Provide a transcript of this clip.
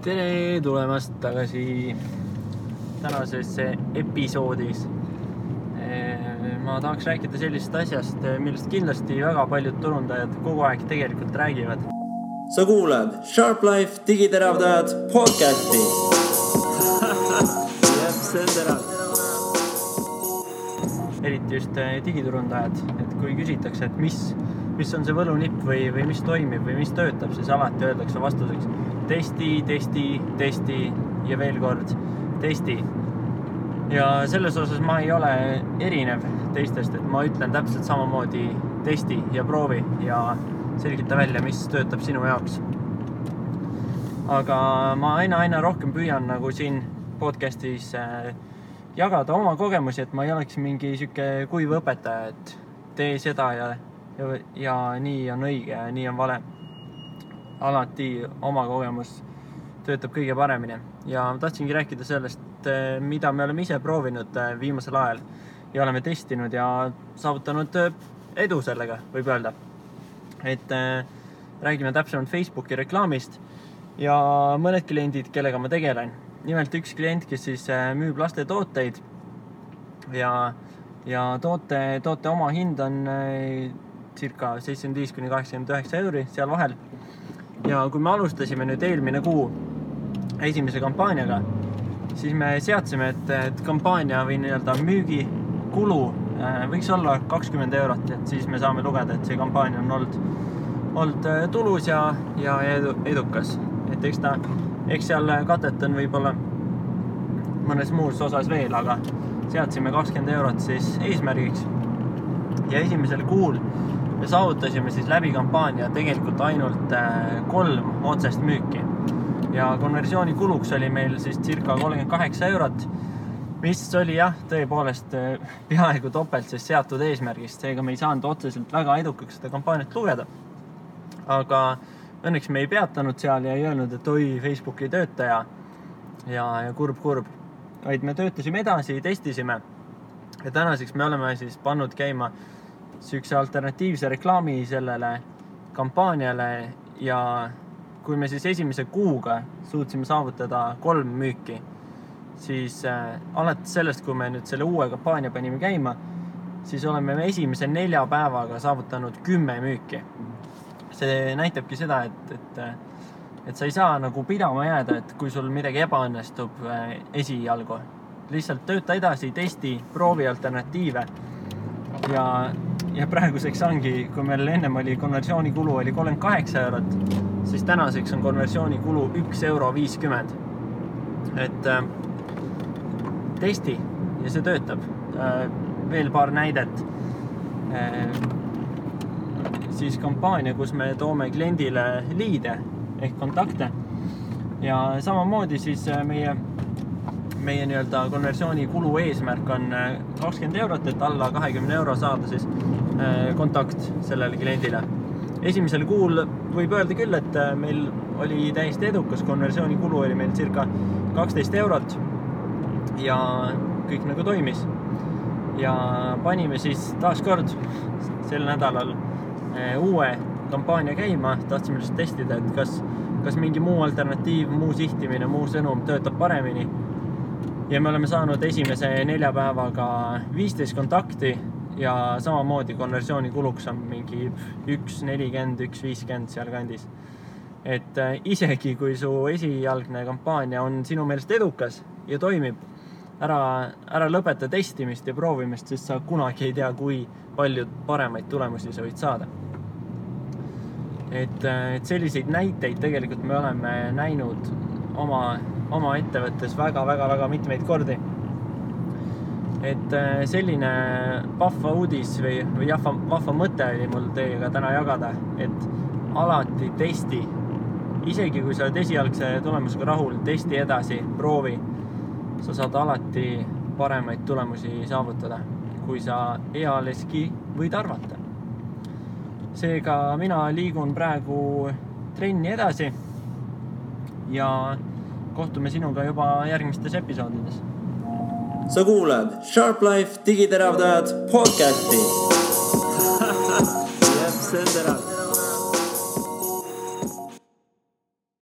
Tere tulemast tagasi tänasesse episoodis. Ma tahaks rääkida sellisest asjast, millest kindlasti väga paljud turundajad kogu aeg tegelikult räägivad. Sa kuulad Sharp Life digiteravdajad podcasti. Jep, see on terav. Eriti just digiturundajad, et kui küsitakse, et mis on see võlunipp või mis toimib või mis töötab, siis alati öeldakse vastuseks testi ja veel kord testi. Ja selles osas ma ei ole erinev teistest, et ma ütlen täpselt samamoodi testi ja proovi ja selgita välja, mis töötab sinu jaoks. Aga ma aina rohkem püüan nagu siin podcastis jagada oma kogemusi, et ma ei oleks mingi siuke kuiv õpetaja, et tee seda ja nii on õige ja nii on vale. Alati oma kogemus töötab kõige paremini ja ma tahtsingi rääkida sellest, mida me oleme ise proovinud viimasel ajal ja oleme testinud ja saavutanud edu sellega, võib öelda. Et räägime täpsemalt Facebooki reklaamist ja mõned kliendid, kellega ma tegelen. Nimelt üks klient, kes siis müüb laste tooteid ja toote oma hind on circa 75–89 euri seal vahel. Ja kui me alustasime nüüd eelmine kuu esimese kampaaniaga, siis me seadsime, et kampaania või nii-öelda müügikulu võiks olla 20 eurot, et siis me saame lugeda, et see kampaania on olnud tulus ja edukas. Et eks seal katet on võib-olla mõnes muus osas veel, aga seadsime 20 eurot siis eesmärgiks. Ja esimesel kuul me saavutasime siis läbi kampaania tegelikult ainult 3 otsest müüki. Ja konversiooni kuluks oli meil siis circa 38 eurot, mis oli tõepoolest peaaegu topelt siis seatud eesmärgist. Seega me ei saanud otseselt väga edukaks seda kampaaniat lugeda. Aga õnneks me ei peatanud seal ja ei öelnud, et oi, Facebook ei tööta ja kurb. Vaid me töötasime edasi, testisime. Ja tänaseks me oleme siis pannud käima sükse alternatiivse reklaami sellele kampaaniale ja kui me siis esimese kuuga suutsime saavutada 3 müüki, siis alates sellest, kui me nüüd selle uue kampaania panime käima, siis oleme me esimese 4 päevaga saavutanud 10 müüki. See näitabki seda, et sa ei saa nagu pidama jääda, et kui sul midagi ebaõnnestub esialgu. Lihtsalt tööta edasi, testi, proovi alternatiive ja praeguseks ongi, kui meil ennem oli konversiooni kulu oli 38 eurot, siis tänaseks on konversiooni kulu 1,50 euro. Et testi ja see töötab. Veel paar näidet. Siis kampaania, kus me toome kliendile liide ehk kontakte ja samamoodi siis meie nii-öelda konversiooni kulu eesmärk on 20 eurot, et alla 20 euro saada siis kontakt sellele kliendile. Esimesel kuul võib öelda küll, et meil oli täiesti edukas, konversiooni kulu oli meil circa 12 eurot ja kõik nagu toimis. Ja panime siis taaskord sel nädalal uue kampaania käima, tahtsime lihtsalt testida, et kas mingi muu alternatiiv, muu sihtimine, muu sõnum töötab paremini. Ja me oleme saanud esimese 4 päevaga 15 kontakti ja samamoodi konversiooni kuluks on mingi 1,40, 1,50 seal kandis. Et isegi kui su esialgne kampaania on sinu meelest edukas ja toimib, ära lõpeta testimist ja proovimist, sest sa kunagi ei tea, kui palju paremaid tulemusi sa võid saada. Et selliseid näiteid tegelikult me oleme näinud oma ettevõttes väga mitmeid kordi. Et selline vahva uudis või vahva mõte oli mul teiega täna jagada, et alati testi. Isegi kui sa oled esialgse tulemusega rahul, testi edasi, proovi. Sa saad alati paremaid tulemusi saavutada, kui sa ealeski võid arvata. Seega mina liigun praegu trenni edasi ja kohtume sinuga juba järgmistes episoodides. Sa kuulad Sharp Life digiteravdajad podcasti. Jep, see on terav.